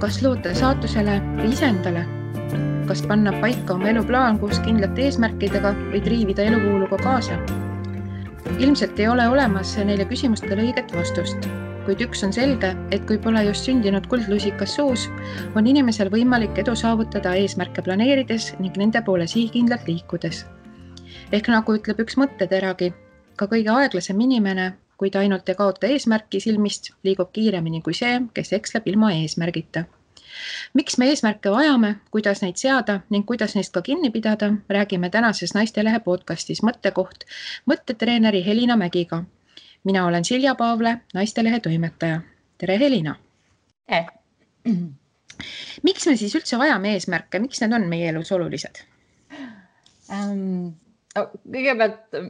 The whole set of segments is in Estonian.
Kas loota saatusele või iseendale? Kas panna paika oma eluplaan koos kindlate eesmärkidega või triivida eluvooluga kaasa? Ilmselt ei ole olemas neile küsimustele õiget vastust, kuid üks on selge, et kui pole just sündinud kuldlusikas suus, on inimesel võimalik edu saavutada eesmärke planeerides ning nende poole sihikindlalt liikudes. Ehk nagu ütleb üks mõtteteragi, ka kõige aeglasem inimene, kui ta ainult ei kaota eesmärki silmist, liigub kiiremini kui see, kes eksleb ilma eesmärgita. Miks me eesmärke vajame, kuidas neid seada ning kuidas neist ka kinni pidada, räägime tänases Naistelehe podcastis Mõttekoht mõttetreeneri Helina Mägiga. Mina olen Silja Paavle, Naistelehe toimetaja. Tere, Helina! Miks me siis üldse vajame eesmärke? Miks need on meie elus olulised? Kõigepealt,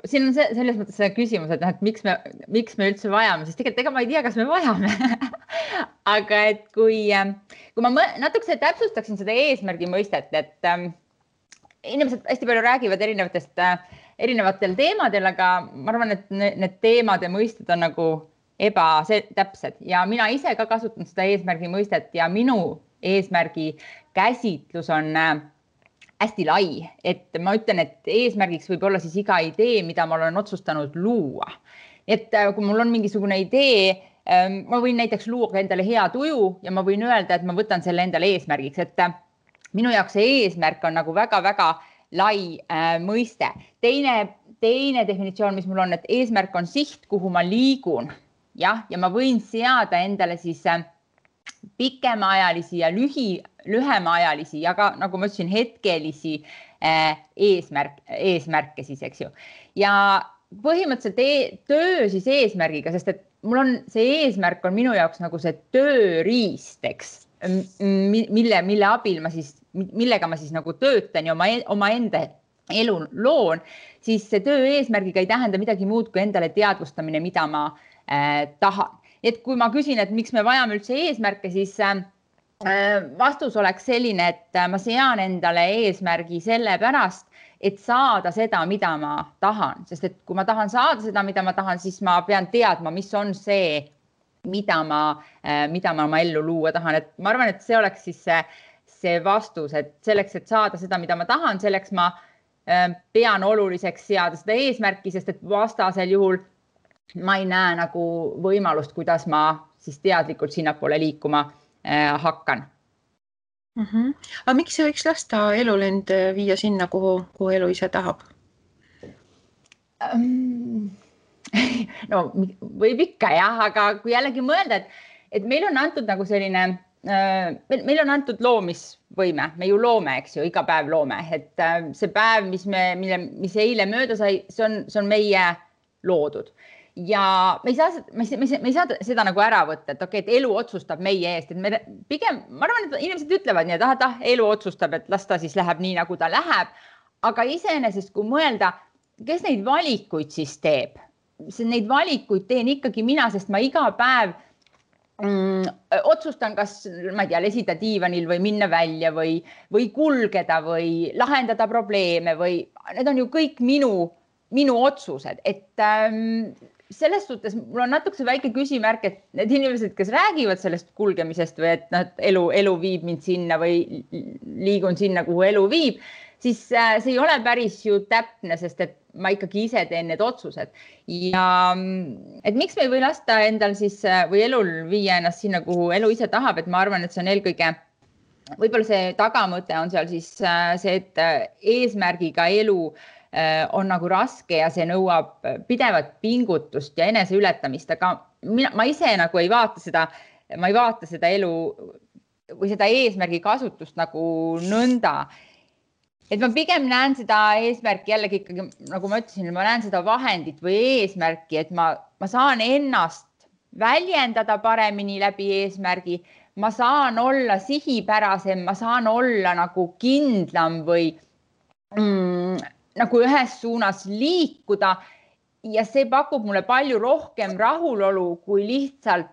siin on selles mõttes see küsimus, et miks me üldse vajame, siis tegelikult ega ma ei tea, kas me vajame. Aga et kui ma natuke täpsustaksin seda eesmärgi mõistet, et inimesed hästi palju räägivad erinevatel teemadel, aga ma arvan, et need teemad ja mõisted on nagu ebatäpsed ja mina ise ka kasutan seda eesmärgi mõistet ja minu eesmärgi käsitlus on hästi lai, et ma ütlen, et eesmärgiks võib olla siis iga idee, mida ma olen otsustanud luua. Et kui mul on mingisugune idee, ma võin näiteks luua endale hea tuju ja ma võin öelda, et ma võtan selle endale eesmärgiks, et minu jaoks see eesmärk on nagu väga-väga lai mõiste. Teine definitsioon, mis mul on, et eesmärk on siht, kuhu ma liigun. Ja ma võin seada endale siis pikemaajalisi ja lühemaajalisi ja ka, nagu ma ütlesin, hetkelisi eesmärke siis, eks ju. Ja põhimõtteliselt töö siis eesmärgiga, sest et mul on see eesmärk on minu jaoks nagu see tööriist, eks, mille abil millega ma siis nagu töötan ja oma enda elu loon, siis see töö eesmärgiga ei tähenda midagi muud kui endale teadvustamine, mida ma tahan. Et kui ma küsin, et miks me vajame üldse eesmärke, siis vastus oleks selline, et ma sean endale eesmärgi sellepärast, et saada seda, mida ma tahan. Sest et kui ma tahan saada seda, mida ma tahan, siis ma pean teadma, mis on see, mida ma oma ellu luua tahan. Et ma arvan, et see oleks siis see vastus, et selleks, et saada seda, mida ma tahan, selleks ma pean oluliseks seada seda eesmärki, sest et vastasel juhul ma ei näe nagu võimalust, kuidas ma siis teadlikult sinnapoole liikuma hakkan. Aga miks see võiks lasta elul end viia sinna, kuhu elu ise tahab? No, võib ikka jah, aga kui jällegi mõelda, et meil on antud nagu selline, meil on antud loomisvõime, me ju loome, eks ju, iga päev loome, et see päev, mis eile mööda sai, see on meie loodud. Ja me ei saa seda nagu ära võtta, et okei, et elu otsustab meie eest, et pigem, ma arvan, et inimesed ütlevad nii, et elu otsustab, et las ta siis läheb nii, nagu ta läheb, aga iseenesest, kui mõelda, kes neid valikuid siis teeb? Neid valikuid teen ikkagi mina, sest ma iga päev otsustan, kas, ma ei tea, lesida diivanil või minna välja või kulgeda või lahendada probleeme või need on ju kõik minu otsused, et selles suhtes mul on natuke väike küsimärk, et need inimesed, kes räägivad sellest kulgemisest või et elu viib mind sinna või liigun sinna, kuhu elu viib, siis see ei ole päris ju täpne, sest et ma ikkagi ise teen need otsused. Ja et miks me ei või lasta endal siis või elul viia ennast sinna, kuhu elu ise tahab, et ma arvan, et see on eelkõige, võib-olla see tagamõte on seal siis see, et eesmärgiga elu on nagu raske ja see nõuab pidevat pingutust ja eneseületamist, aga ma ise nagu ei vaata seda elu või seda eesmärgi kasutust nagu nõnda. Et ma pigem näen seda eesmärki jällegi ikkagi, nagu ma ütlesin, ma näen seda vahendit või eesmärki, et ma saan ennast väljendada paremini läbi eesmärgi, ma saan olla sihipärasem, ma saan olla nagu kindlam või nagu ühes suunas liikuda ja see pakub mulle palju rohkem rahulolu kui lihtsalt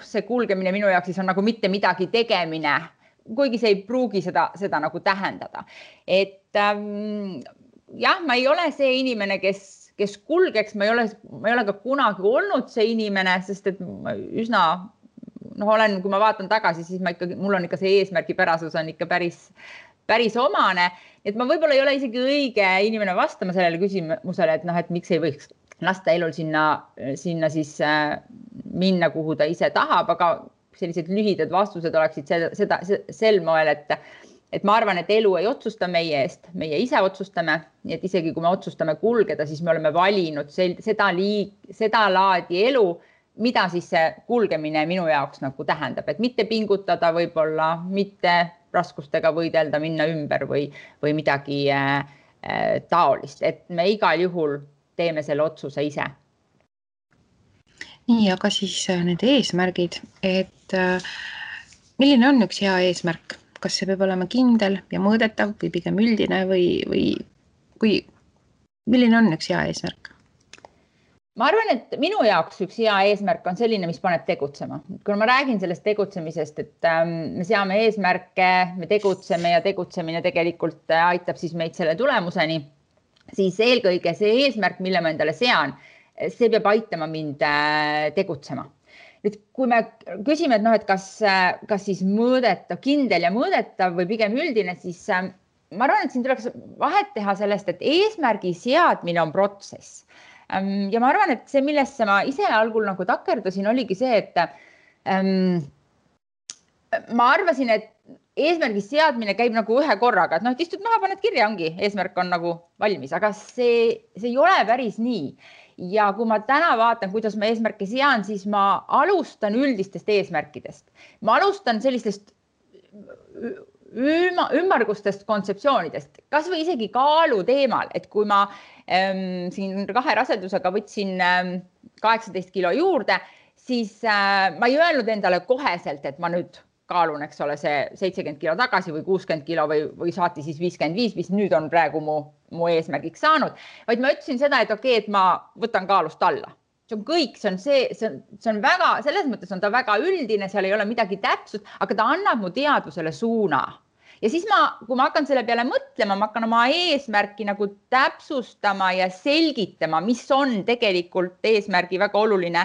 see kulgemine minu jaoks siis on nagu mitte midagi tegemine, kuigi see ei pruugi seda nagu tähendada. Et jah, ma ei ole see inimene, kes kulgeks, ma ei ole ka kunagi olnud see inimene, sest et ma üsna kui ma vaatan tagasi, siis mul on ikka see eesmärgipärasus on ikka päris omane. Et ma võib-olla ei ole isegi õige inimene vastama sellele küsimusele, et miks ei võiks lasta elul sinna siis minna, kuhu ta ise tahab, aga sellised lühidad vastused oleksid sel moel, et ma arvan, et elu ei otsusta meie eest, meie ise otsustame, nii et isegi kui me otsustame kulgeda, siis me oleme valinud seda laadi elu, mida siis see kulgemine minu jaoks nagu tähendab, et mitte pingutada võib-olla, mitte raskustega võidelda, minna ümber või midagi taolist, et me igal juhul teeme selle otsuse ise. Nii, aga siis need eesmärgid, et milline on üks hea eesmärk? Kas see peab olema kindel ja mõõdetav või pigem üldine või milline on üks hea eesmärk? Ma arvan, et minu jaoks üks hea eesmärk on selline, mis paneb tegutsema. Kui ma räägin sellest tegutsemisest, et me seame eesmärke, me tegutseme ja tegutsemine tegelikult aitab siis meid selle tulemuseni, siis eelkõige see eesmärk, mille ma endale sean, see peab aitama mind tegutsema. Nüüd, kui me küsime, et kas siis mõõdetav, kindel ja mõõdetav või pigem üldine, siis ma arvan, et siin tuleks vahet teha sellest, et eesmärgi seadmine on protsess. Ja ma arvan, et see, millesse ma ise algul nagu takerdusin, oligi see, et ma arvasin, et eesmärgi seadmine käib nagu ühe korraga, et istud maha, paned kirja, ongi, eesmärk on nagu valmis, aga see ei ole päris nii. Ja kui ma täna vaatan, kuidas ma eesmärke sean, siis ma alustan üldistest eesmärkidest. Ma alustan sellistest ümmargustest kontseptsioonidest, kas või isegi kaalu teemal, et kui ma siin 2 rasedusega võtsin 18 kilo juurde, siis ma ei öelnud endale koheselt, et ma nüüd kaalun, eks ole, see 70 kilo tagasi või 60 kilo või saati siis 55, mis nüüd on praegu mu eesmärgiks saanud, vaid ma ütlesin seda, et okei, et ma võtan kaalust alla. See on kõik, see on väga, selles mõttes on ta väga üldine, seal ei ole midagi täpsust, aga ta annab mu teadvusele suuna. Ja siis kui ma hakkan selle peale mõtlema, ma hakkan oma eesmärki nagu täpsustama ja selgitama, mis on tegelikult eesmärgi väga oluline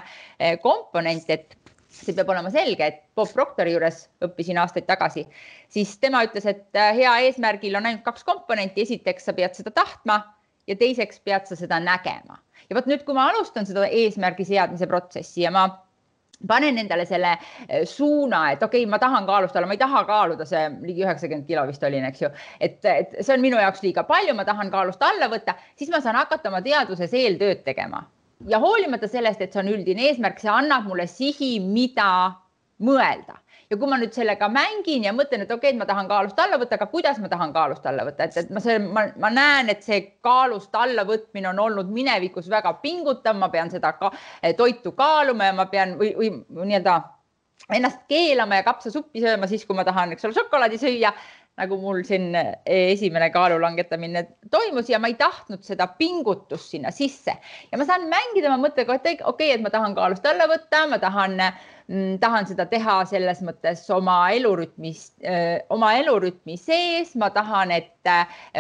komponent, et see peab olema selge, et Bob Proctori juures õppisin aastaid tagasi, siis tema ütles, et hea eesmärgil on ainult 2 komponenti. Esiteks sa pead seda tahtma ja teiseks pead sa seda nägema. Ja võt nüüd, kui ma alustan seda eesmärgi seadmise protsessi ja ma panen endale selle suuna, et okei, ma tahan kaalust alla, ma ei taha kaaluda, see ligi 90 kilo vist olin, eks ju, et see on minu jaoks liiga palju, ma tahan kaalust alla võtta, siis ma saan hakata oma teaduses eeltööd tegema. Ja hoolimata sellest, et see on üldine eesmärk, see annab mulle sihi, mida mõelda. Ja kui ma nüüd sellega mängin ja mõtlen, et okei, ma tahan kaalust alla võtta, aga kuidas ma tahan kaalust alla võtta? Et ma näen, et see kaalust alla võtmine on olnud minevikus väga pingutav, ma pean seda toitu kaaluma ja ma pean või nii-öelda ennast keelama ja kapsasuppi sööma siis, kui ma tahan, eks ole, šokolaadi süüa, nagu mul siin esimene kaalu langetamine toimus ja ma ei tahtnud seda pingutust sinna sisse. Ja ma saan mängida, ma mõtlen, et okei, et ma tahan kaalust alla võtta, ma tahan seda teha selles mõttes oma elurütmi sees, ma tahan, et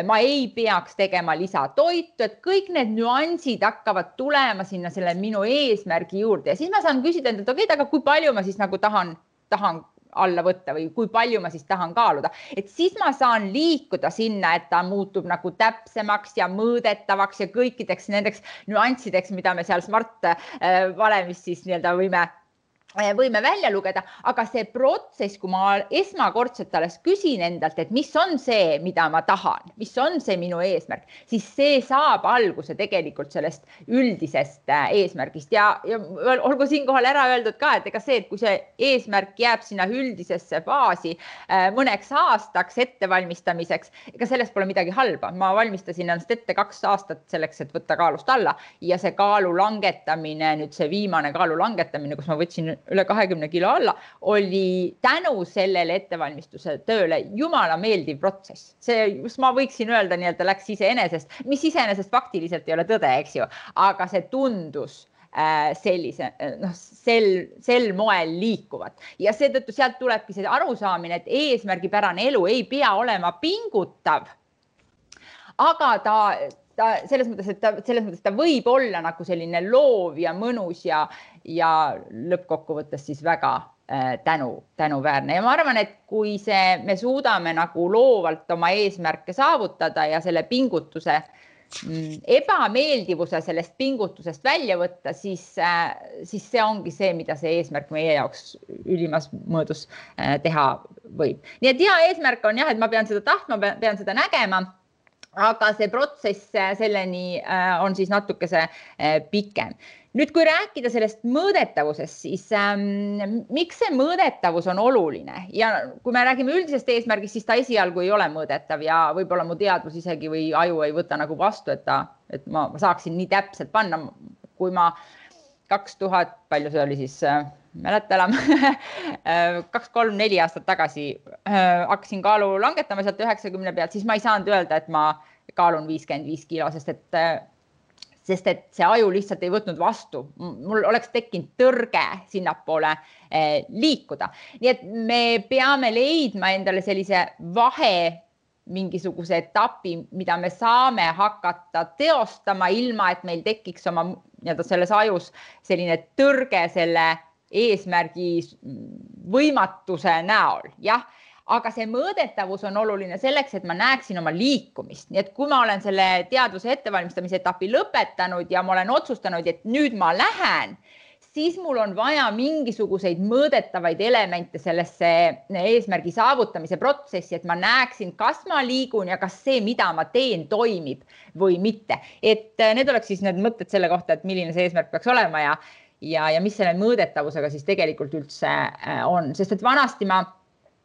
ma ei peaks tegema lisatoitu, et kõik need nüansid hakkavad tulema sinna selle minu eesmärgi juurde ja siis ma saan küsida endalt, okei, aga kui palju ma siis nagu tahan alla võtta või kui palju ma siis tahan kaaluda. Et siis ma saan liikuda sinna, et ta muutub nagu täpsemaks ja mõõdetavaks ja kõikideks nendeks nüanssideks, mida me seal Smart valemis siis nii-öelda võime välja lugeda, aga see protsess, kui ma esmakordselt alles küsin endalt, et mis on see, mida ma tahan, mis on see minu eesmärk, siis see saab alguse tegelikult sellest üldisest eesmärgist ja olgu siinkohal ära öeldud ka, et ega see, et kui see eesmärk jääb sinna üldisesse faasi mõneks aastaks ettevalmistamiseks, ega sellest pole midagi halba. Ma valmistasin ennast ette 2 aastat selleks, et võtta kaalust alla ja see kaalu langetamine, nüüd see viimane kaalu langetamine, kus ma võtsin üle 20 kilo alla, oli tänu sellele ettevalmistuse tööle jumala meeldiv protsess. See, ma võiksin öelda, nii-öelda läks iseenesest, mis iseenesest faktiliselt ei ole tõde, eks ju, aga see tundus sellise, sel moel liikuvat. Ja seetõttu sealt tulebki see arusaamine, et eesmärgipärane elu ei pea olema pingutav, aga selles mõttes, et ta võib olla nagu selline loov ja mõnus ja lõppkokkuvõttes siis väga tänuväärne ja ma arvan, et kui me suudame nagu loovalt oma eesmärke saavutada ja selle pingutuse ebameeldivuse sellest pingutusest välja võtta, siis see ongi see, mida see eesmärk meie jaoks ülimas mõõdus teha võib. Nii et hea eesmärk on jah, et ma pean seda tahtma, pean seda nägema, aga see protsess selleni on siis natukese pikem. Nüüd, kui rääkida sellest mõõdetavusest, siis miks see mõõdetavus on oluline? Ja kui me räägime üldisest eesmärgist, siis ta esialgu ei ole mõõdetav ja võib-olla mu teadvus isegi või aju ei võta nagu vastu, et ma saaksin nii täpselt panna, kui ma 2000, palju see oli siis, mäleta enam, 2-3-4 aastat tagasi hakkasin kaalu langetama sealt 90 pealt, siis ma ei saanud öelda, et ma kaalun 55 kilo, sest et see aju lihtsalt ei võtnud vastu. Mul oleks tekkinud tõrge sinnapoole liikuda. Nii et me peame leidma endale sellise vahe mingisuguse etapi, mida me saame hakata teostama ilma, et meil tekiks oma selles ajus selline tõrge selle eesmärgi võimatuse näol. Jah, aga see mõõdetavus on oluline selleks, et ma näeksin oma liikumist. Nii et kui ma olen selle teadvuse ettevalmistamise etapi lõpetanud ja ma olen otsustanud, et nüüd ma lähen, siis mul on vaja mingisuguseid mõõdetavaid elemente sellesse eesmärgi saavutamise protsessi, et ma näeksin, kas ma liigun ja kas see, mida ma teen, toimib või mitte. Et need oleks siis need mõtted selle kohta, et milline see eesmärk peaks olema ja mis selle mõõdetavusega siis tegelikult üldse on. Sest et vanasti ma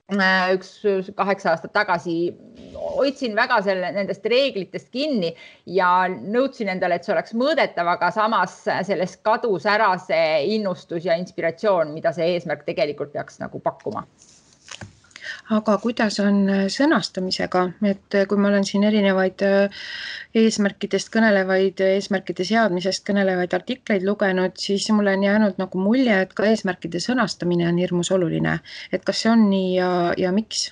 8 aastat tagasi hoidsin väga nendest reeglitest kinni ja nõudsin endale, et see oleks mõõdetav, aga samas sellest kadus ära see innustus ja inspiratsioon, mida see eesmärk tegelikult peaks nagu pakkuma. Aga kuidas on sõnastamisega, et kui ma olen siin erinevaid eesmärkidest kõnelevaid, eesmärkide seadmisest kõnelevaid artikleid lugenud, siis mulle on jäänud nagu mulje, et ka eesmärkide sõnastamine on hirmus oluline. Et kas see on nii ja miks?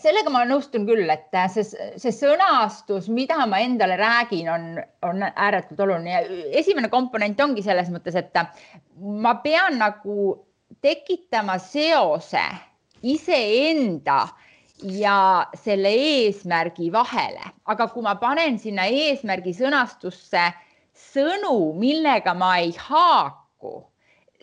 Sellega ma nõustun küll, et see sõnastus, mida ma endale räägin, on ääretult oluline. Esimene komponent ongi selles mõttes, et ma pean nagu tekitama seose iseenda ja selle eesmärgi vahele. Aga kui ma panen sinna eesmärgi sõnastusse sõnu, millega ma ei haaku,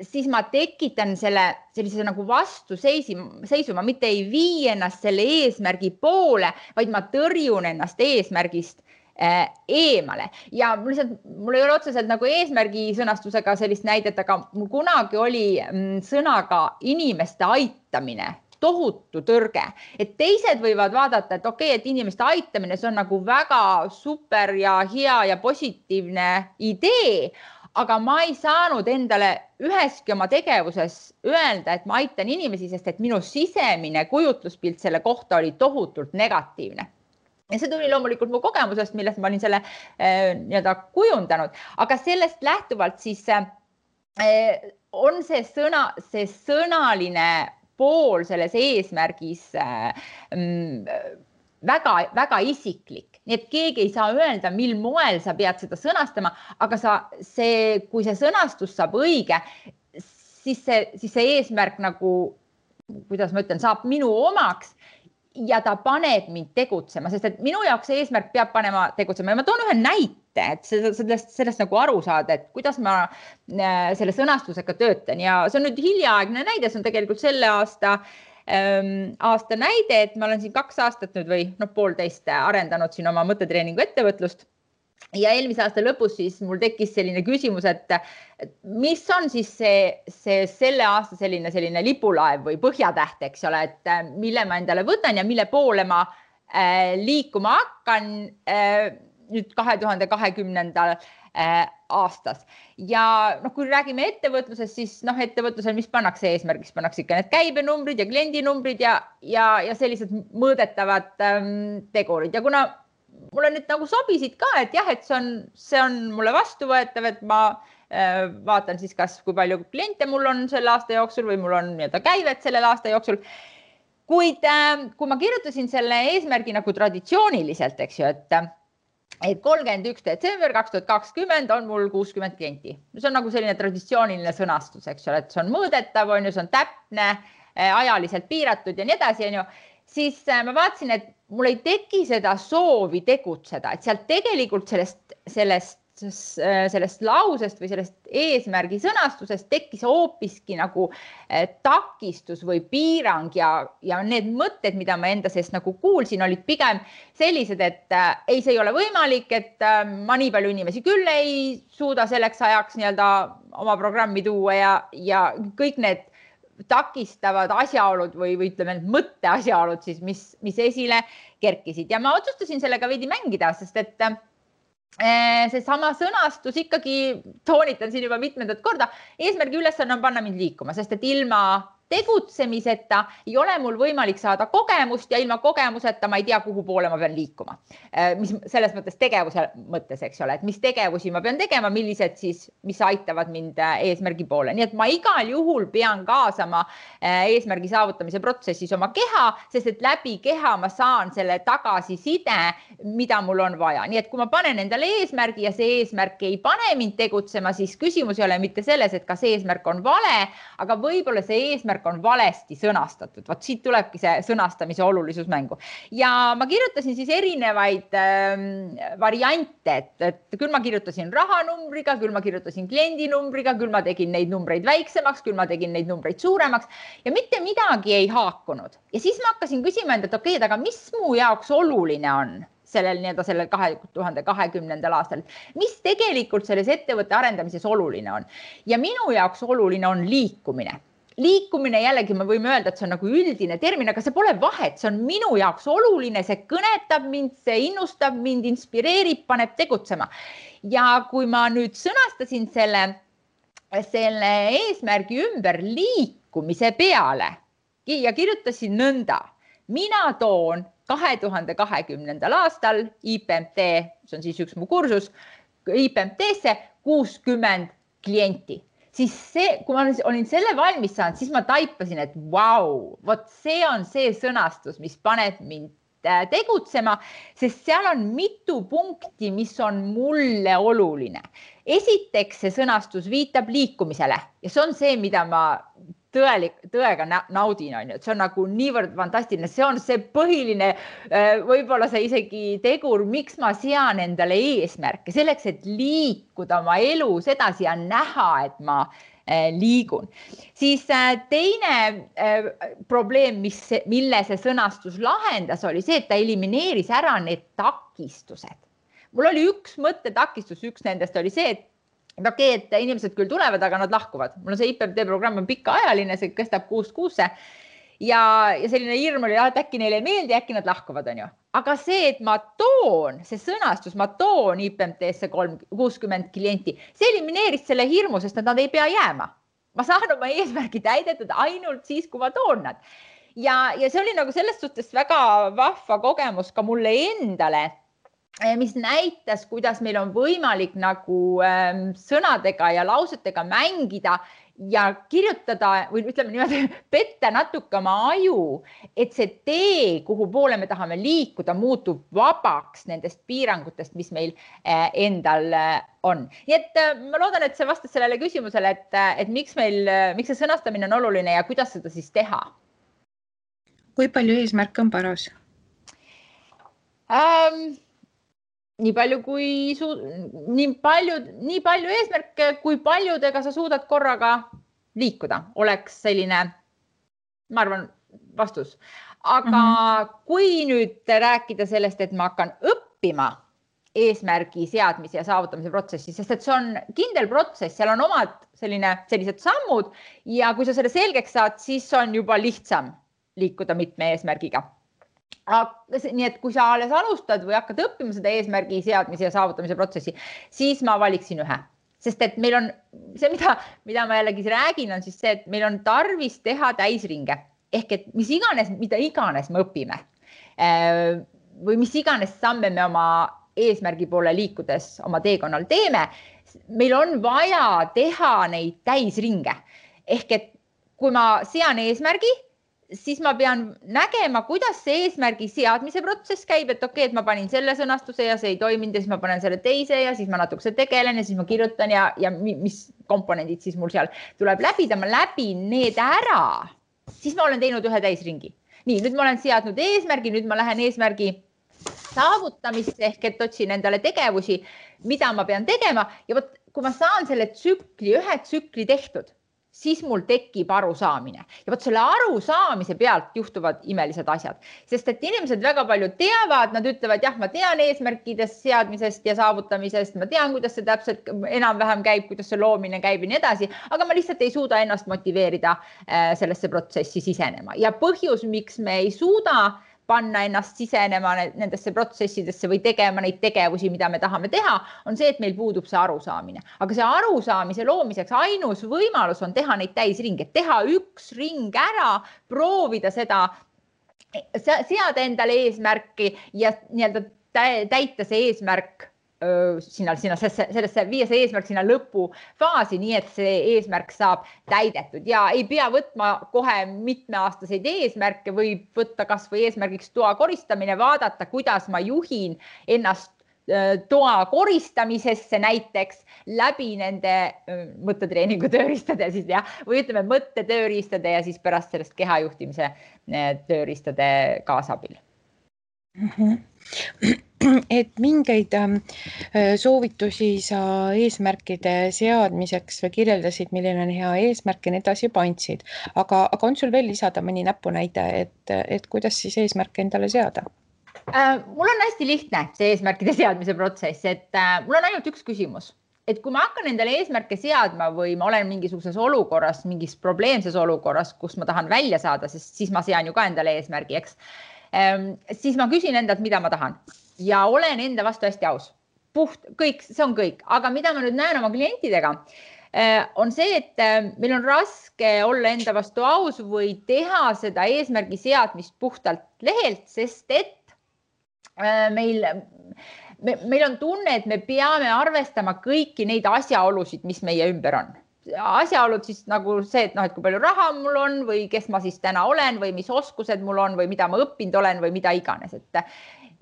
siis ma tekitan sellise nagu vastuseisuma, mitte ei vii ennast selle eesmärgi poole, vaid ma tõrjun ennast eesmärgist eemale. Ja mul ei ole otseselt nagu eesmärgi sõnastusega sellist näidet, aga mul kunagi oli sõnaga inimeste aitamine tohutu tõrge. Et teised võivad vaadata, et okei, et inimeste aitamine, see on nagu väga super ja hea ja positiivne idee, aga ma ei saanud endale üheski oma tegevuses öelda, et ma aitan inimesi, sest et minu sisemine kujutluspilt selle kohta oli tohutult negatiivne. Ja see tuli loomulikult mu kogemusest, millest ma olin selle kujundanud, aga sellest lähtuvalt siis on see sõnaline pool selles eesmärgis väga, väga isiklik. Nii et keegi ei saa öelda, mil moel sa pead seda sõnastama, aga kui see sõnastus saab õige, siis see eesmärk nagu, kuidas ma ütlen, saab minu omaks ja ta paneb mind tegutsema, sest et minu jaoks see eesmärk peab panema tegutsema ja ma toon ühe näite, et sellest nagu aru saada, et kuidas ma selle sõnastusega töötan ja see on nüüd hiljaaegne näide, see on tegelikult selle aasta näide, et ma olen siin 2 aastat nüüd või 1,5 arendanud siin oma mõttetreeningu ettevõtlust ja eelmise aasta lõpus siis mul tekkis selline küsimus, et mis on siis selle aasta selline lipulaev või põhjatäht, eks ole, et mille ma endale võtan ja mille poole ma liikuma hakkan nüüd 2020. Aastas. Ja kui räägime ettevõtlusest, siis ettevõtlusel, mis pannakse eesmärgiks, pannakse ikka need käibenumbrid ja kliendinumbrid ja sellised mõõdetavad tegurid. Ja kuna mulle nüüd nagu sobisid ka, et jah, et see on mulle vastuvõetav, et ma vaatan siis kas kui palju kliente mul on selle aasta jooksul või mul on käivet sellel aasta jooksul. Kuid kui ma kirjutasin selle eesmärgi nagu traditsiooniliselt, eks ju, et 31. detsember 2020 on mul 60 klienti. See on nagu selline traditsiooniline sõnastus, eks ole, et see on mõõdetav, on ju, see on täpne, ajaliselt piiratud ja nii edasi, on ju. Siis ma vaatasin, et mul ei teki seda soovi tegutseda, et sealt tegelikult sellest lausest või sellest eesmärgi sõnastusest tekkis hoopiski nagu takistus või piirang ja need mõtted, mida ma enda seest nagu kuulsin, olid pigem sellised, et ei, see ei ole võimalik, et ma nii palju inimesi küll ei suuda selleks ajaks nii-öelda oma programmi tuua ja kõik need takistavad asjaolud või ütleme mõtte asjaolud siis, mis esile kerkisid ja ma otsustasin sellega veidi mängida, sest et see sama sõnastus ikkagi toonitan siin juba mitmendat korda. Eesmärgi ülesanne on panna mind liikuma, sest et ilma tegutsemiseta ei ole mul võimalik saada kogemust ja ilma kogemuseta ma ei tea, kuhu poole ma pean liikuma. Mis selles mõttes tegevuse mõttes, eks ole, et mis tegevusi ma pean tegema, millised siis, mis aitavad mind eesmärgi poole. Nii et ma igal juhul pean kaasama eesmärgi saavutamise protsessis oma keha, sest et läbi keha ma saan selle tagasiside, mida mul on vaja. Nii et kui ma panen endale eesmärgi ja see eesmärk ei pane mind tegutsema, siis küsimus ei ole mitte selles, et kas eesmärk on vale, aga võib-olla see eesmärk on valesti sõnastatud. Vaat siit tulebki see sõnastamise olulisus mängu. Ja ma kirjutasin siis erinevaid variante, et küll ma kirjutasin rahanumbriga, küll ma kirjutasin kliendinumbriga, küll ma tegin neid numbreid väiksemaks, küll ma tegin neid numbreid suuremaks ja mitte midagi ei haakunud. Ja siis ma hakkasin küsima enda, et okei, aga mis mu jaoks oluline on sellel 2020. aastal, mis tegelikult selles ettevõtte arendamises oluline on. Ja minu jaoks oluline on liikumine. Liikumine jällegi me võime öelda, et see on nagu üldine termin, aga see pole vahet, see on minu jaoks oluline, see kõnetab mind, see innustab mind, inspireerib, paneb tegutsema. Ja kui ma nüüd sõnastasin selle eesmärgi ümber liikumise peale ja kirjutasin nõnda, mina toon 2020. aastal IPMT, see on siis üks mu kursus, IPMT-sse 60 klienti. Siis see, kui ma olin selle valmis saanud, siis ma taipasin, et vau, vot see on see sõnastus, mis paneb mind tegutsema, sest seal on mitu punkti, mis on mulle oluline. Esiteks see sõnastus viitab liikumisele ja see on see, mida ma tõega naudin, on ju, et see on nagu niivõrd fantastiline, see on see põhiline, võib-olla see isegi tegur, miks ma sean endale eesmärke, selleks, et liikuda oma elus edasi ja näha, et ma liigun. Siis teine probleem, mille see sõnastus lahendas, oli see, et ta elimineeris ära need takistused. Mul oli üks mõttetakistus, üks nendest oli see, et okei, et inimesed küll tulevad, aga nad lahkuvad. Mul on see IPMT programm on pikaajaline, see kestab 6 kuusse ja selline hirm oli, et äkki neile ei meeldi, äkki nad lahkuvad, on ju. Aga see, et ma toon, see sõnastus, ma toon IPMT-sse 60 klienti, see elimineeris selle hirmu, sest nad ei pea jääma. Ma saan oma eesmärgi täidetud ainult siis, kui ma toon nad. Ja see oli nagu selles suhtes väga vahva kogemus ka mulle endale, mis näitas, kuidas meil on võimalik nagu sõnadega ja lausetega mängida ja kirjutada või ütleme niimoodi, petta natuke oma aju, et see tee, kuhu poole me tahame liikuda, muutub vabaks nendest piirangutest, mis meil endal on. Nii et ma loodan, et see vastas sellele küsimusele, et miks see sõnastamine on oluline ja kuidas seda siis teha? Kui palju eesmärke on paras? Nii palju eesmärke, kui paljudega sa suudad korraga liikuda, oleks selline, ma arvan, vastus. Aga kui nüüd rääkida sellest, et ma hakkan õppima eesmärgi seadmise ja saavutamise protsessi, sest et see on kindel protsess, seal on omad sellised sammud ja kui sa selle selgeks saad, siis on juba lihtsam liikuda mitme eesmärgiga. Nii et kui sa alles alustad või hakkad õppima seda eesmärgi seadmise ja saavutamise protsessi, siis ma valiksin ühe. Sest et meil on see, mida ma jällegi räägin, on siis see, et meil on tarvis teha täisringe. Ehk et mida iganes me õpime või mis iganes samme me oma eesmärgi poole liikudes oma teekonnal teeme, meil on vaja teha neid täisringe. Ehk et kui ma sean eesmärgi, siis ma pean nägema, kuidas see eesmärgi seadmise protsess käib, et okei, et ma panin selle sõnastuse ja see ei toiminud ja siis ma panen selle teise ja siis ma natukese tegelen ja siis ma kirjutan ja mis komponendid siis mul seal tuleb läbida, ma läbin need ära, siis ma olen teinud ühe täisringi. Nii, nüüd ma olen seadnud eesmärgi, nüüd ma lähen eesmärgi saavutamisse ehk et otsin endale tegevusi, mida ma pean tegema ja võt, kui ma saan selle ühe tsükli tehtud, siis mul tekib arusaamine ja võt selle arusaamise pealt juhtuvad imelised asjad, sest et inimesed väga palju teavad, nad ütlevad, jah, ma tean eesmärkidest seadmisest ja saavutamisest, ma tean, kuidas see täpselt enam-vähem käib, kuidas see loomine käib ja nii edasi, aga ma lihtsalt ei suuda ennast motiveerida sellesse protsessi sisenema ja põhjus, miks me ei suuda panna ennast sisenema nendesse protsessidesse või tegema neid tegevusi, mida me tahame teha, on see, et meil puudub see arusaamine. Aga see arusaamise loomiseks ainus võimalus on teha neid täisringe, teha üks ring ära, proovida seda, seada endale eesmärki ja nii-öelda täita see eesmärk sellesse viia see eesmärk sinna lõpufaasi, nii et see eesmärk saab täidetud ja ei pea võtma kohe mitmeaastaseid eesmärke, võib võtta kas või eesmärgiks toa koristamine, vaadata, kuidas ma juhin ennast toa koristamisesse näiteks läbi nende mõttetreeningu tööriistade siis või ütleme mõttetööriistade ja siis pärast sellest kehajuhtimise tööriistade kaasabil. Et mingeid soovitusi sa eesmärkide seadmiseks või kirjeldasid, milline on hea eesmärk ja nii edasi juba andsid, aga on sul veel lisada mõni näpunäide, et kuidas siis eesmärke endale seada? Mul on hästi lihtne see eesmärkide seadmise protsess, et mul on ainult üks küsimus, et kui ma hakkan endale eesmärke seadma või ma olen mingisuguses olukorras, mingis probleemses olukorras, kus ma tahan välja saada, sest siis ma sean ju ka endale eesmärgi, eks, siis ma küsin endalt, mida ma tahan ja olen enda vastu hästi aus. Kõik, see on kõik, aga mida ma nüüd näen oma klientidega, on see, et meil on raske olla enda vastu aus või teha seda eesmärgi seadmist puhtalt lehelt, sest et meil on tunne, et me peame arvestama kõiki neid asjaolusid, mis meie ümber on. Asjaolud siis nagu see, et kui palju raha mul on või kes ma siis täna olen või mis oskused mul on või mida ma õppinud olen või mida iganes.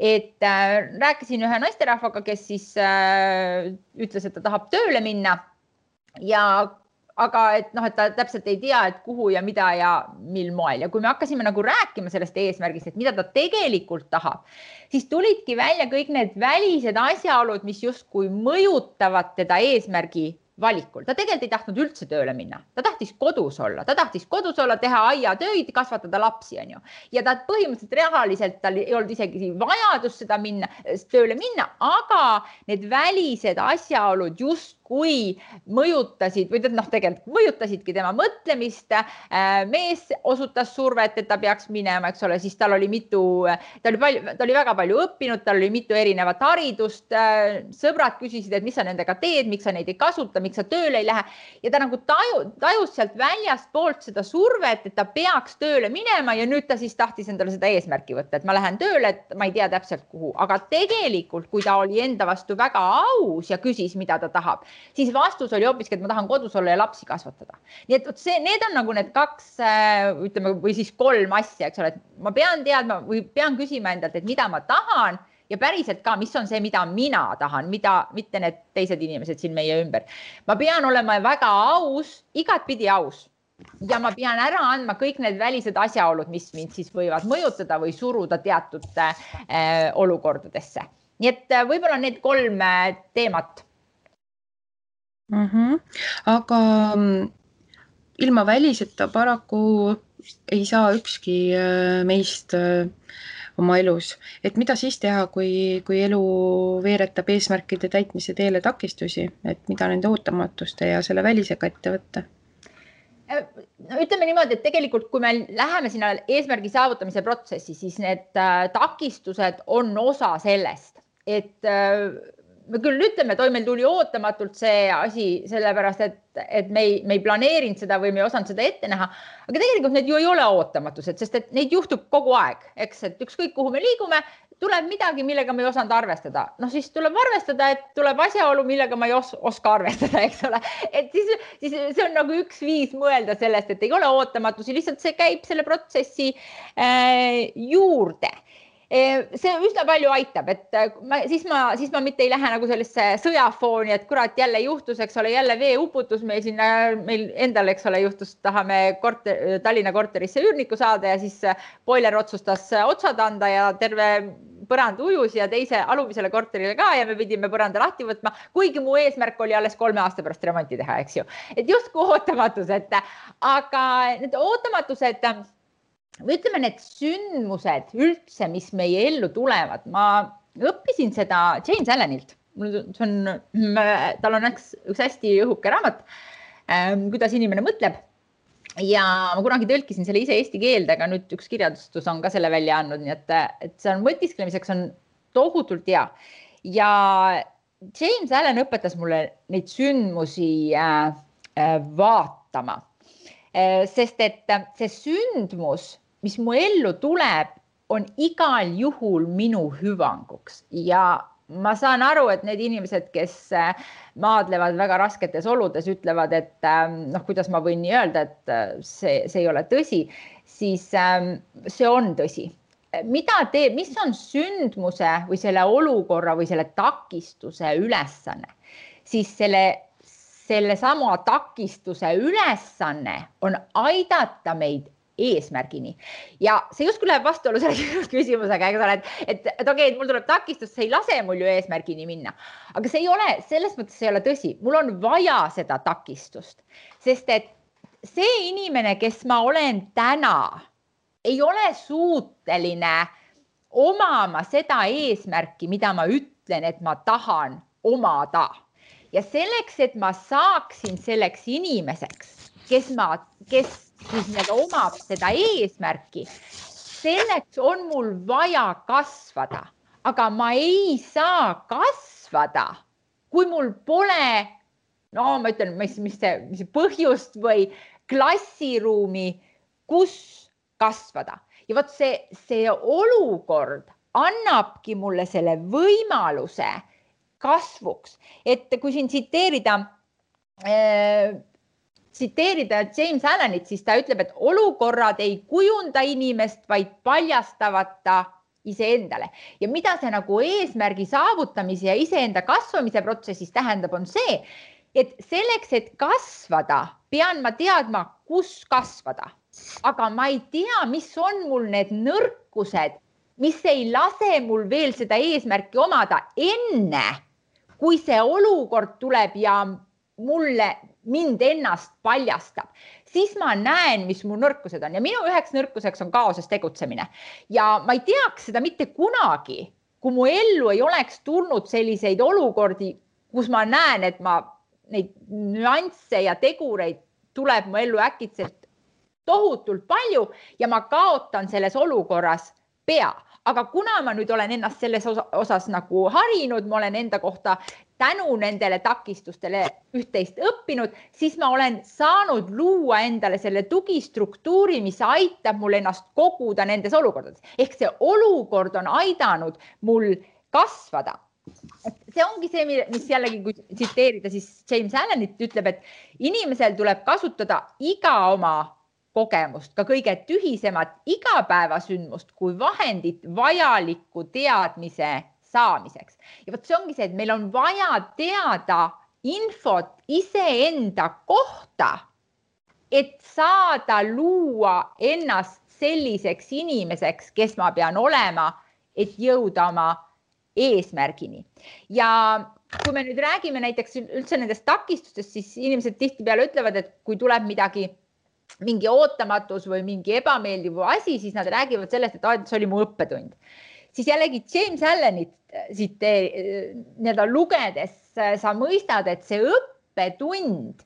Et rääkisin ühe naisterahvaga, kes siis ütles, et ta tahab tööle minna aga et ta täpselt ei tea, et kuhu ja mida ja mil moel. Ja kui me hakkasime rääkima sellest eesmärgist, et mida ta tegelikult tahab, siis tulidki välja kõik need välised asjaolud, mis justkui mõjutavad teda eesmärgi valikul. Ta tegelikult ei tahtnud üldse tööle minna. Ta tahtis kodus olla, teha aiatöid, kasvatada lapsi, on ju. Ja ta põhimõtteliselt rahaliselt tal ei olnud isegi vajadus seda tööle minna, aga need välised asjaolud justkui mõjutasid või tegelikult mõjutasidki tema mõtlemist. Mees osutas survet, et ta peaks minema, eks ole, siis tal oli väga palju õppinud, tal oli mitu erinevat haridust. Sõbrad küsisid, et mis sa nendega teed, miks sa neid ei kasuta, miks sa tööle ei lähe ja ta tajus sealt väljast poolt seda survet, et ta peaks tööle minema ja nüüd ta siis tahtis endale seda eesmärki võtta, et ma lähen tööle, et ma ei tea täpselt kuhu, aga tegelikult, kui ta oli enda vastu väga aus ja küsis, mida ta tahab, siis vastus oli hoopiski, et ma tahan kodus olla ja lapsi kasvatada. Nii et need on need kaks, ütleme, või siis 3 asja, eks ole, et ma pean teadma või pean küsima endalt, et mida ma tahan ja päriselt ka, mis on see, mida mina tahan, mitte need teised inimesed siin meie ümber. Ma pean olema väga aus, igatpidi aus ja ma pean ära andma kõik need välised asjaolud, mis mind siis võivad mõjutada või suruda teatud olukordadesse. Nii et võib-olla need 3 teemat. Aga ilma väliseta paraku ei saa ükski meist oma elus. Et mida siis teha, kui elu veeretab eesmärkide täitmise teele takistusi, et mida nende ootamatuste ja selle välisega ette võtta? Ütleme niimoodi, et tegelikult kui me läheme sinna eesmärgi saavutamise protsessi, siis need takistused on osa sellest, et me küll ütleme, et meil tuli ootamatult see asi sellepärast, et me ei planeerinud seda või me ei osanud seda ette näha, aga tegelikult need ju ei ole ootamatused, sest et neid juhtub kogu aeg, eks, et ükskõik kuhu me liigume, tuleb midagi, millega ma ei osanud arvestada. No siis tuleb arvestada, et tuleb asjaolu, millega ma ei oska arvestada, eks ole. Et siis see on nagu üks viis mõelda sellest, et ei ole ootamatusi, lihtsalt see käib selle protsessi juurde. See üsna palju aitab, et siis ma mitte ei lähe nagu sellesse sõjafooni, et kurat jälle juhtus, eks ole, jälle veeuputus meil endal, eks ole, juhtus, tahame Tallinna korterisse üürniku saada ja siis boiler otsustas otsad anda ja terve põrand ujus ja teise alumisele korterile ka ja me pidime põranda lahti võtma, kuigi mu eesmärk oli alles 3 aasta pärast remonti teha, eks ju. Et justkui ootamatused, aga need ootamatused või ütleme, need sündmused üldse, mis meie ellu tulevad. Ma õppisin seda James Allenilt. Tal on üks hästi õhuke raamat, kuidas inimene mõtleb. Ja ma kunagi tõlkisin selle ise eesti keelde, aga nüüd üks kirjadustus on ka selle välja andnud, nii et see on mõtisklemiseks on tohutult hea. Ja James Allen õpetas mulle neid sündmusi vaatama, sest et see sündmus, mis mu ellu tuleb, on igal juhul minu hüvanguks ja ma saan aru, et need inimesed, kes maadlevad väga rasketes oludes, ütlevad, et kuidas ma võin nii öelda, et see ei ole tõsi, siis see on tõsi. Mis on sündmuse või selle olukorra või selle takistuse ülesanne, siis selle sama takistuse ülesanne on aidata meid eesmärgini. Ja see justkui läheb vastuolu selle küsimusega, et okei, mul tuleb takistus, see ei lase mul ju eesmärgini minna. Aga see ei ole, selles mõttes see ei ole tõsi. Mul on vaja seda takistust, sest et see inimene, kes ma olen täna, ei ole suuteline omama seda eesmärki, mida ma ütlen, et ma tahan omada. Ja selleks, et ma saaksin selleks inimeseks, kes siis omab seda eesmärki, selleks on mul vaja kasvada, aga ma ei saa kasvada, kui mul pole, ma ütlen, mis see põhjust või klassiruumi, kus kasvada. Ja vot see olukord annabki mulle selle võimaluse kasvuks, et kui siin tsiteerida James Allenit, siis ta ütleb, et olukorrad ei kujunda inimest, vaid paljastavad ta iseendale. Ja mida see nagu eesmärgi saavutamise ja iseenda kasvamise protsessis tähendab, on see, et selleks, et kasvada, pean ma teadma, kus kasvada. Aga ma ei tea, mis on mul need nõrkused, mis ei lase mul veel seda eesmärki omada enne, kui see olukord tuleb ja mind ennast paljastab, siis ma näen, mis mu nõrkused on ja minu üheks nõrkuseks on kaoses tegutsemine ja ma ei teaks seda mitte kunagi, kui mu ellu ei oleks tulnud selliseid olukordi, kus ma näen, et neid nüansse ja tegureid tuleb mu ellu äkitselt tohutult palju ja ma kaotan selles olukorras pea. Aga kuna ma nüüd olen ennast selles osas nagu harinud, ma olen enda kohta tänu nendele takistustele üht-teist õppinud, siis ma olen saanud luua endale selle tugistruktuuri, mis aitab mul ennast koguda nendes olukordades. Ehk see olukord on aidanud mul kasvada. See ongi see, mis jällegi, kui tsiteerida, siis James Allenit ütleb, et inimesel tuleb kasutada iga oma kogemust, ka kõige tühisemat igapäevasündmust kui vahendit vajaliku teadmise saamiseks. Ja vot see ongi see, et meil on vaja teada infot iseenda kohta, et saada luua ennast selliseks inimeseks, kes ma pean olema, et jõuda oma eesmärgini. Ja kui me nüüd räägime näiteks üldse nendest takistustest, siis inimesed tihtipeale ütlevad, et kui tuleb mingi ootamatus või mingi ebameeldiv asi, siis nad räägivad sellest, et see oli mu õppetund. Siis jällegi James Allenit lugedes sa mõistad, et see õppetund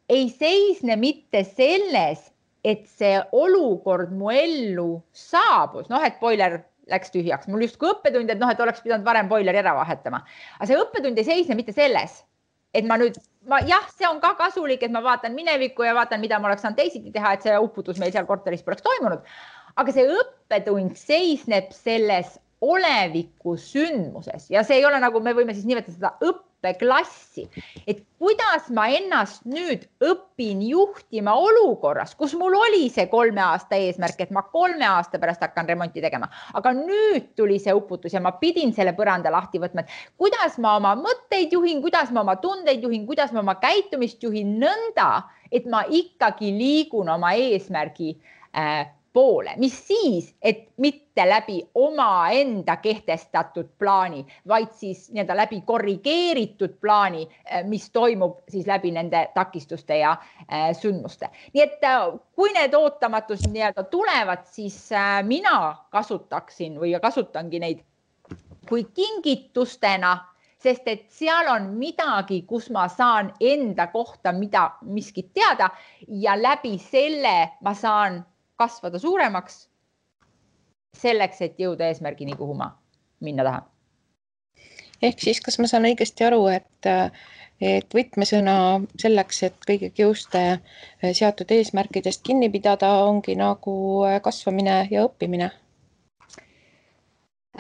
ei seisne mitte selles, et see olukord mu ellu saabus, et boiler läks tühjaks. Mul just kui õppetund, et oleks pidanud varem boileri ära vahetama. Aga see õppetund ei seisne mitte selles, et jah, see on ka kasulik, et ma vaatan minevikku ja vaatan, mida ma oleks saanud teisiti teha, et see uputus meil seal korteris poleks toimunud. Aga see õppetund seisneb selles oleviku sündmuses ja see ei ole nagu me võime siis nimetada seda õppeklassi, et kuidas ma ennast nüüd õpin juhtima olukorras, kus mul oli see 3 aasta eesmärk, et ma 3 aasta pärast hakkan remonti tegema, aga nüüd tuli see uputus ja ma pidin selle põranda lahti võtma, et kuidas ma oma mõtteid juhin, kuidas ma oma tundeid juhin, kuidas ma oma käitumist juhin nõnda, et ma ikkagi liigun oma eesmärgi poole, mis siis, et mitte läbi omaenda kehtestatud plaani, vaid siis nii-öelda läbi korrigeeritud plaani, mis toimub siis läbi nende takistuste ja sündmuste. Nii et kui need ootamatus nii-öelda tulevad, siis mina kasutaksin või kasutangi neid kui kingitustena, sest et seal on midagi, kus ma saan enda kohta miskit teada ja läbi selle ma saan kasvada suuremaks selleks, et jõuda eesmärgini, kuhu ma minna tahan. Ehk siis, kas ma saan õigesti aru, et võtmesõna selleks, et kõige kiuste seatud eesmärkidest kinni pidada, ongi nagu kasvamine ja õppimine?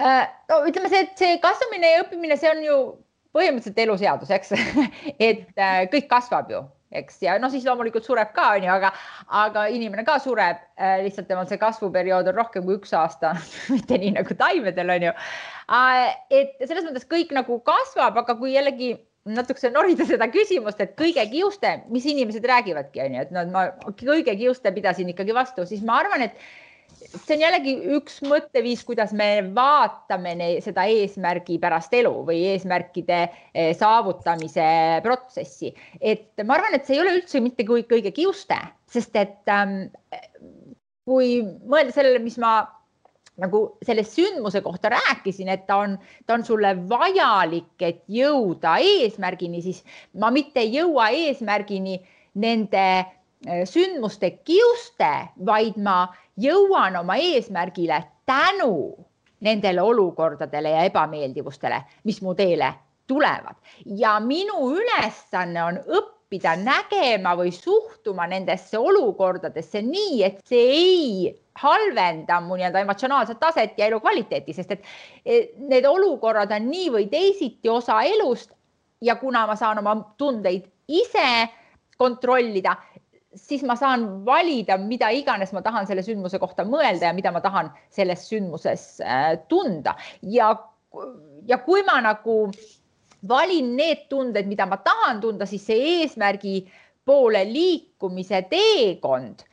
No ütleme see, et see kasvamine ja õppimine, see on ju põhimõtteliselt eluseadus, eks, et kõik kasvab ju. Eks, ja no siis loomulikult sureb ka, aga inimene ka sureb, lihtsalt temal see kasvuperiood on rohkem kui 1 aasta, mitte nii nagu taimedel on ju. Et selles mõttes kõik nagu kasvab, aga kui jällegi natukese norida seda küsimust, et kõige kiuste, mis inimesed räägivadki, on ju, et ma kõige kiuste pidasin ikkagi vastu, siis ma arvan, et see on jällegi üks mõtteviis, kuidas me vaatame seda eesmärgi pärast elu või eesmärkide saavutamise protsessi. Et ma arvan, et see ei ole üldse mitte kõige kiuste, sest et kui mõelda sellele, mis ma nagu selle sündmuse kohta rääkisin, et ta on sulle vajalik, et jõuda eesmärgini, siis ma mitte ei jõua eesmärgini nende sündmuste kiuste, vaid ma jõuan oma eesmärgile tänu nendele olukordadele ja ebameeldivustele, mis mu teele tulevad. Ja minu ülesanne on õppida nägema või suhtuma nendesse olukordadesse nii, et see ei halvenda mu nii-öelda emotsionaalset taset ja elu kvaliteeti, sest et need olukorrad on nii või teisiti osa elust ja kuna ma saan oma tundeid ise kontrollida, siis ma saan valida, mida iganes ma tahan selle sündmuse kohta mõelda ja mida ma tahan selles sündmuses tunda. Ja kui ma nagu valin need tunded, mida ma tahan tunda, siis see eesmärgi poole liikumise teekond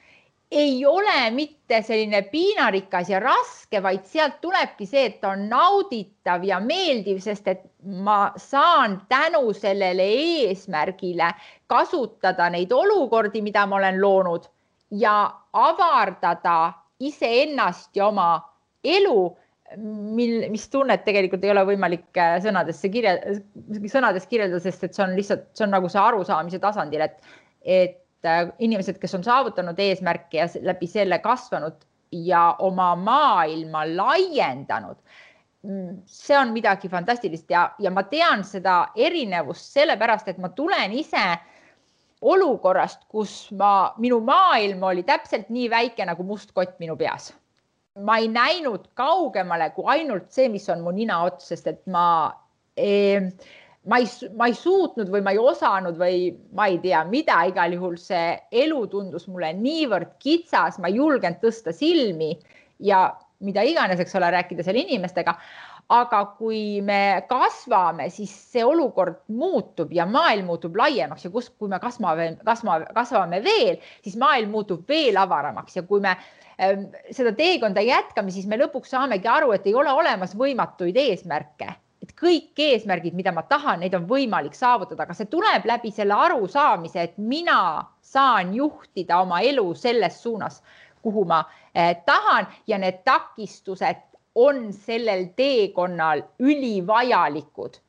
ei ole mitte selline piinarikas ja raske, vaid sealt tulebki see, et on nauditav ja meeldiv, sest et ma saan tänu sellele eesmärgile kasutada neid olukordi, mida ma olen loonud ja avardada iseennast ja oma elu, mis tunnet tegelikult ei ole võimalik sõnades kirjeldada, sest et see on lihtsalt, see on nagu see arusaamise tasandil, et inimesed, kes on saavutanud eesmärki ja läbi selle kasvanud ja oma maailma laiendanud, see on midagi fantastilist ja ma tean seda erinevust sellepärast, et ma tulen ise olukorrast, kus minu maailm oli täpselt nii väike nagu must kott minu peas. Ma ei näinud kaugemale kui ainult see, mis on mu nina ots, sest et ma ei suutnud või ma ei osanud või ma ei tea mida, igal juhul see elu tundus mulle niivõrd kitsas, ma ei julgenud tõsta silmi ja mida iganes, eks ole, rääkida selle inimestega. Aga kui me kasvame, siis see olukord muutub ja maailm muutub laiemaks ja kui me kasvame veel, siis maailm muutub veel avaramaks ja kui me seda teekonda jätkame, siis me lõpuks saamegi aru, et ei ole olemas võimatuid eesmärke. Et kõik eesmärgid, mida ma tahan, neid on võimalik saavutada, aga see tuleb läbi selle arusaamise, et mina saan juhtida oma elu selles suunas, kuhu ma tahan ja need takistused on sellel teekonnal ülivajalikud,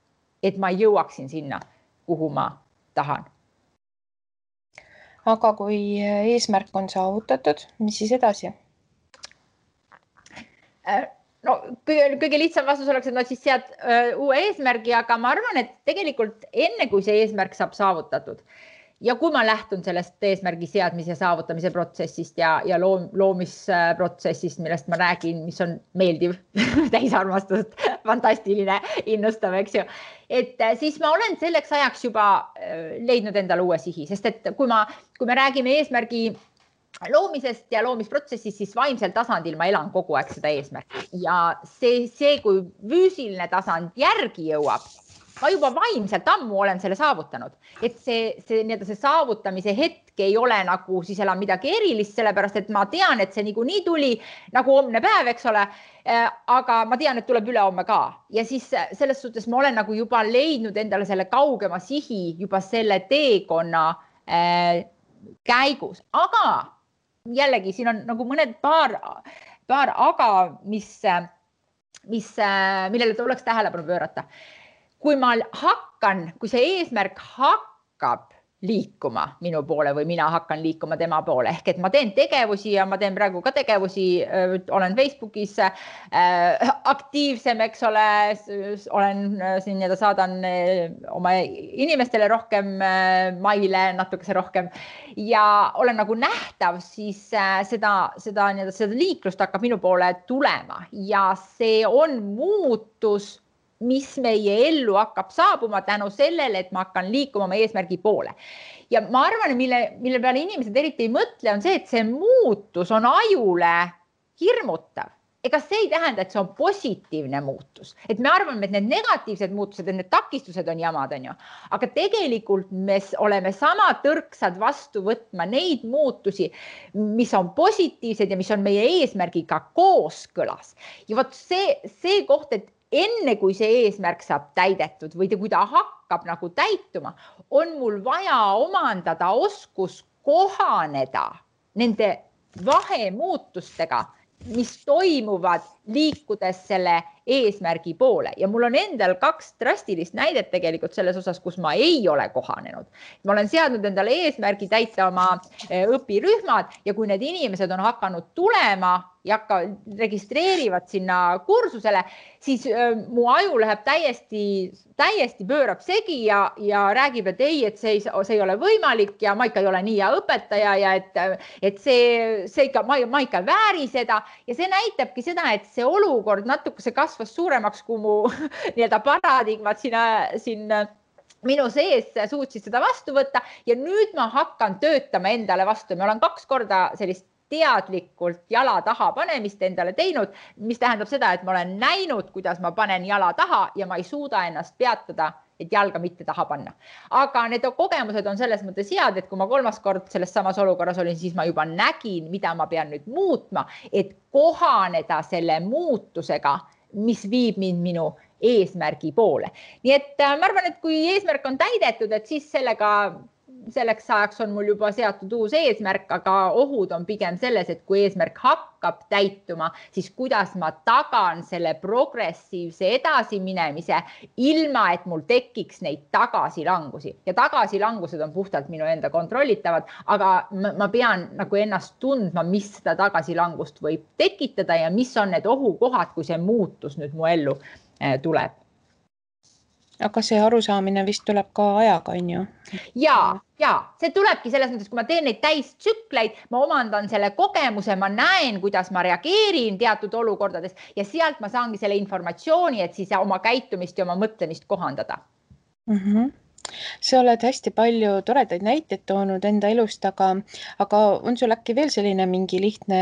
et ma jõuaksin sinna, kuhu ma tahan. Aga kui eesmärk on saavutatud, mis siis edasi? No, kõige lihtsam vastus oleks, et no siis sead uue eesmärgi, aga ma arvan, et tegelikult enne kui see eesmärk saab saavutatud ja kui ma lähtun sellest eesmärgi seadmise ja saavutamise protsessist ja loomisprotsessist, millest ma räägin, mis on meeldiv, täisarmastust, fantastiline, innustav, eks ju. Et siis ma olen selleks ajaks juba leidnud endale uue sihi, sest et kui me räägime eesmärgi loomisest ja loomisprotsessist, siis vaimsel tasandil ma elan kogu aeg seda eesmärki ja see, kui füüsiline tasand järgi jõuab, ma juba vaimselt ammu olen selle saavutanud, et see saavutamise hetk ei ole nagu siis enam midagi erilist, sellepärast et ma tean, et see niikuinii tuli nagu homne päev, eks ole, aga ma tean, et tuleb ülehomme ka ja siis selles suhtes ma olen nagu juba leidnud endale selle kaugema sihi juba selle teekonna käigus, aga jällegi siin on nagu mõned paar aga, millele tuleks tähelepanu pöörata. Kui see eesmärk hakkab liikuma minu poole või mina hakkan liikuma tema poole, ehk et ma teen tegevusi ja ma teen praegu ka tegevusi, olen Facebookis aktiivsem, eks ole, olen siin ja saadan oma inimestele rohkem maile, natukese rohkem ja olen nagu nähtav, siis seda liiklust hakkab minu poole tulema ja see on muutus, mis meie ellu hakkab saabuma tänu sellele, et ma hakkan liikuma oma eesmärgi poole. Ja ma arvan, mille peale inimesed eriti ei mõtle, on see, et see muutus on ajule hirmutav. Ega see ei tähenda, et see on positiivne muutus. Et me arvame, et need negatiivsed muutused, et need takistused on jamad, on ju. Aga tegelikult me oleme sama tõrksad vastu võtma neid muutusi, mis on positiivsed ja mis on meie eesmärgiga kooskõlas. Ja vot see koht, et enne kui see eesmärk saab täidetud või kui ta hakkab nagu täituma, on mul vaja omandada oskus kohaneda nende vahemuutustega, mis toimuvad liikudes selle eesmärgi poole ja mul on endal 2 drastilist näidet tegelikult selles osas, kus ma ei ole kohanenud. Ma olen seadnud endale eesmärgi täita oma õpirühmad ja kui need inimesed on hakanud tulema ja registreerivad sinna kursusele, siis mu aju läheb täiesti pöörab segi ja räägib, et ei, et see ei ole võimalik ja ma ikka ei ole nii hea õpetaja ja et see ikka, ma ikka vääri seda ja see näitabki seda, et see olukord natuke kasvas suuremaks, kui mu paradigmad siin minu sees suutsid seda vastu võtta ja nüüd ma hakkan töötama endale vastu. Ma olen 2 korda sellist teadlikult jala taha panemist endale teinud, mis tähendab seda, et ma olen näinud, kuidas ma panen jala taha ja ma ei suuda ennast peatada, et jalga mitte taha panna. Aga need kogemused on selles mõttes head, et kui ma 3. kord selles samas olukorras olin, siis ma juba nägin, mida ma pean nüüd muutma, et kohaneda selle muutusega, mis viib mind minu eesmärgi poole. Nii et ma arvan, et kui eesmärk on täidetud, et siis selleks ajaks on mul juba seatud uus eesmärk, aga ohud on pigem selles, et kui eesmärk hakkab täituma, siis kuidas ma tagan selle progressiivse edasiminemise, ilma et mul tekiks neid tagasilangusi. Ja tagasilangused on puhtalt minu enda kontrollitavad, aga ma pean nagu ennast tundma, mis seda tagasilangust võib tekitada ja mis on need ohukohad, kui see muutus nüüd mu ellu tuleb. Aga see arusaamine vist tuleb ka ajaga, on ju? Ja, see tulebki selles mõttes, kui ma teen neid täistsükleid, ma omandan selle kogemuse, ma näen, kuidas ma reageerin teatud olukordades ja sealt ma saangi selle informatsiooni, et siis oma käitumist ja oma mõtlemist kohandada. Sa oled hästi palju toredaid näiteid toonud enda elust, aga on sul äkki veel selline mingi lihtne,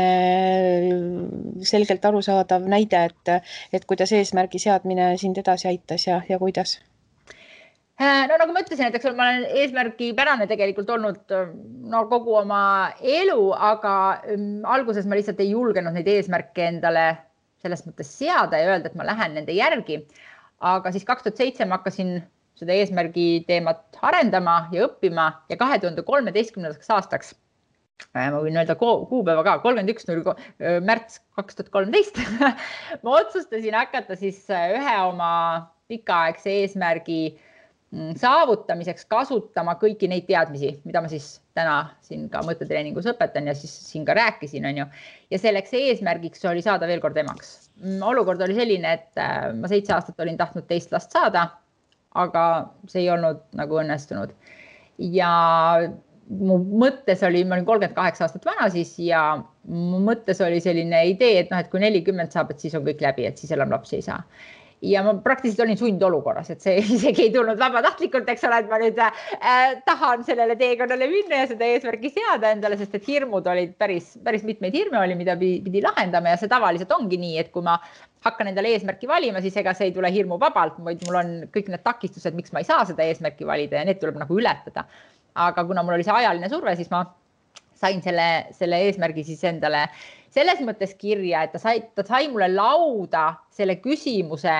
selgelt arusaadav näide, et kuidas eesmärgi seadmine sind edasi aitas ja kuidas? No nagu ma ütlesin, et ma olen eesmärgipärane tegelikult olnud kogu oma elu, aga alguses ma lihtsalt ei julgenud neid eesmärke endale selles mõttes seada ja öelda, et ma lähen nende järgi. Aga siis 2007 ma hakkasin seda eesmärgi teemat arendama ja õppima ja 2013. aastaks, ma võin öelda kuupäeva ka, 31. märts 2013, ma otsustasin hakata siis ühe oma pikaaegse eesmärgi saavutamiseks kasutama kõiki neid teadmisi, mida ma siis täna siin ka mõttetreeningus õpetan ja siis siin ka rääkisin, on ju. Ja selleks eesmärgiks oli saada veel kord emaks. Olukord oli selline, et ma 7 aastat olin tahtnud teist last saada, aga see ei olnud nagu õnnestunud. ja mu mõttes oli, ma olin 38 aastat vana siis ja mu mõttes oli selline idee, et kui 40 saab, et siis on kõik läbi, et siis enam lapsi ei saa. Ja ma praktiliselt olin sundolukorras, et see isegi ei tulnud vabatahtlikult, eks ole, et ma nüüd tahan sellele teekonnale minna ja seda eesmärgi seada endale, sest et hirmud olid päris mitmeid hirme oli, mida pidi lahendama ja see tavaliselt ongi nii, et kui ma hakkan endale eesmärki valima, siis ega see ei tule hirmu vabalt, vaid mul on kõik need takistused, miks ma ei saa seda eesmärki valida ja need tuleb nagu ületada. Aga kuna mul oli see ajaline surve, siis ma sain selle eesmärgi siis endale selles mõttes kirja, et ta sai mulle lauda selle küsimuse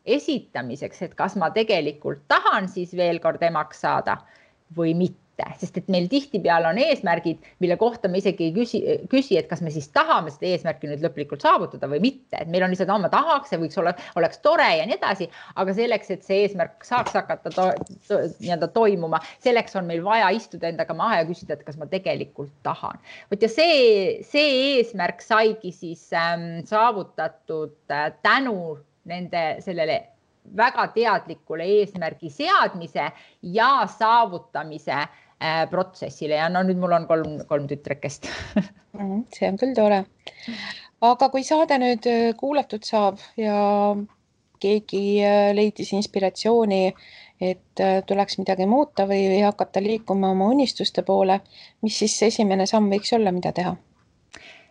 esitamiseks, et kas ma tegelikult tahan siis veel kord emaks saada või mitte. Sest et meil tihtipeale on eesmärgid, mille kohta me isegi ei küsi, et kas me siis tahame seda eesmärki nüüd lõplikult saavutada või mitte. Et meil on lihtsalt, ma tahaks, see võiks oleks tore ja nii edasi, aga selleks, et see eesmärk saaks hakata toimuma, selleks on meil vaja istuda endaga maha ja küsida, et kas ma tegelikult tahan. Ja see eesmärk saigi siis saavutatud tänu sellele väga teadlikule eesmärgi seadmise ja saavutamise protsessile ja nüüd mul on kolm tütrekest. See on küll tore. Aga kui saade nüüd kuulatud saab ja keegi leidis inspiratsiooni, et tuleks midagi muuta või hakata liikuma oma unistuste poole, mis siis esimene samm võiks olla, mida teha?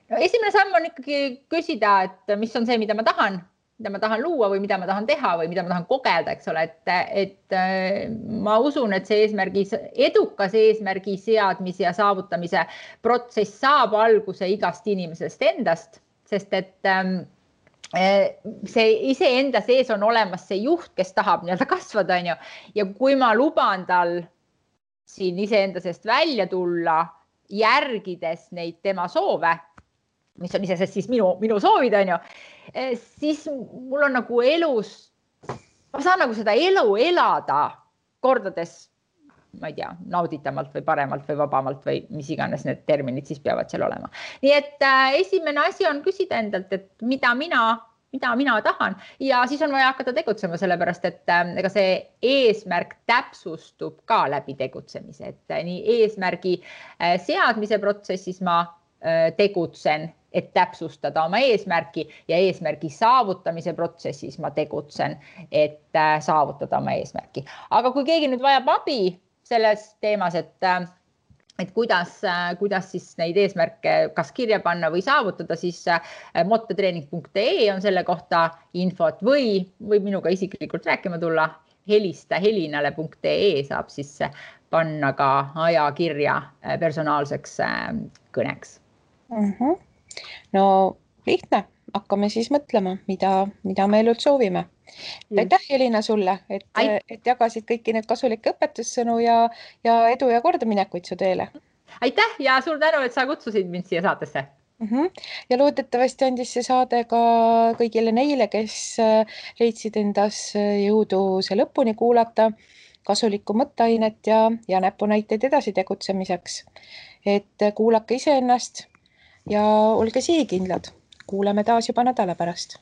No, esimene samm on ikkagi küsida, et mis on see, mida ma tahan luua või mida ma tahan teha või mida ma tahan kogeda, eks ole, et ma usun, et see edukas eesmärgi seadmise ja saavutamise protsess saab alguse igast inimesest endast, sest et see iseenda sees on olemas see juht, kes tahab kasvada, ja kui ma luban tal siin iseenda seest välja tulla, järgides neid tema soove, mis on isesest siis minu soovid, siis mul on nagu elus, ma saan nagu seda elu elada kordades, ma ei tea, nauditavalt või paremalt või vabamalt või mis iganes need terminid siis peavad seal olema. Nii et esimene asi on küsida endalt, et mida mina tahan ja siis on vaja hakata tegutsema, sellepärast et ega see eesmärk täpsustub ka läbi tegutsemise, et nii eesmärgi seadmise protsessis ma tegutsen, et täpsustada oma eesmärki ja eesmärgi saavutamise protsessis ma tegutsen, et saavutada oma eesmärki. Aga kui keegi nüüd vajab abi selles teemas, et kuidas siis neid eesmärke kas kirja panna või saavutada, siis mottotreening.ee on selle kohta infot või minuga isiklikult rääkima tulla. Helista helinale.ee saab siis panna ka ajakirja personaalseks kõneks. No lihtne, hakkame siis mõtlema, mida me elult soovime. Aitäh, Helina, sulle, et jagasid kõiki need kasulikke õpetussõnu ja edu ja kordaminekuid su teele. Aitäh ja suur tänu, et sa kutsusid mind siia saatesse. Ja loodetavasti andis see saade ka kõigile neile, kes leidsid endas jõudu see lõpuni kuulata, kasulikku mõtteainet ja näpunäiteid edasi tegutsemiseks. Et kuulake iseennast ja olge sihikindlad. Kuuleme taas juba nädala pärast.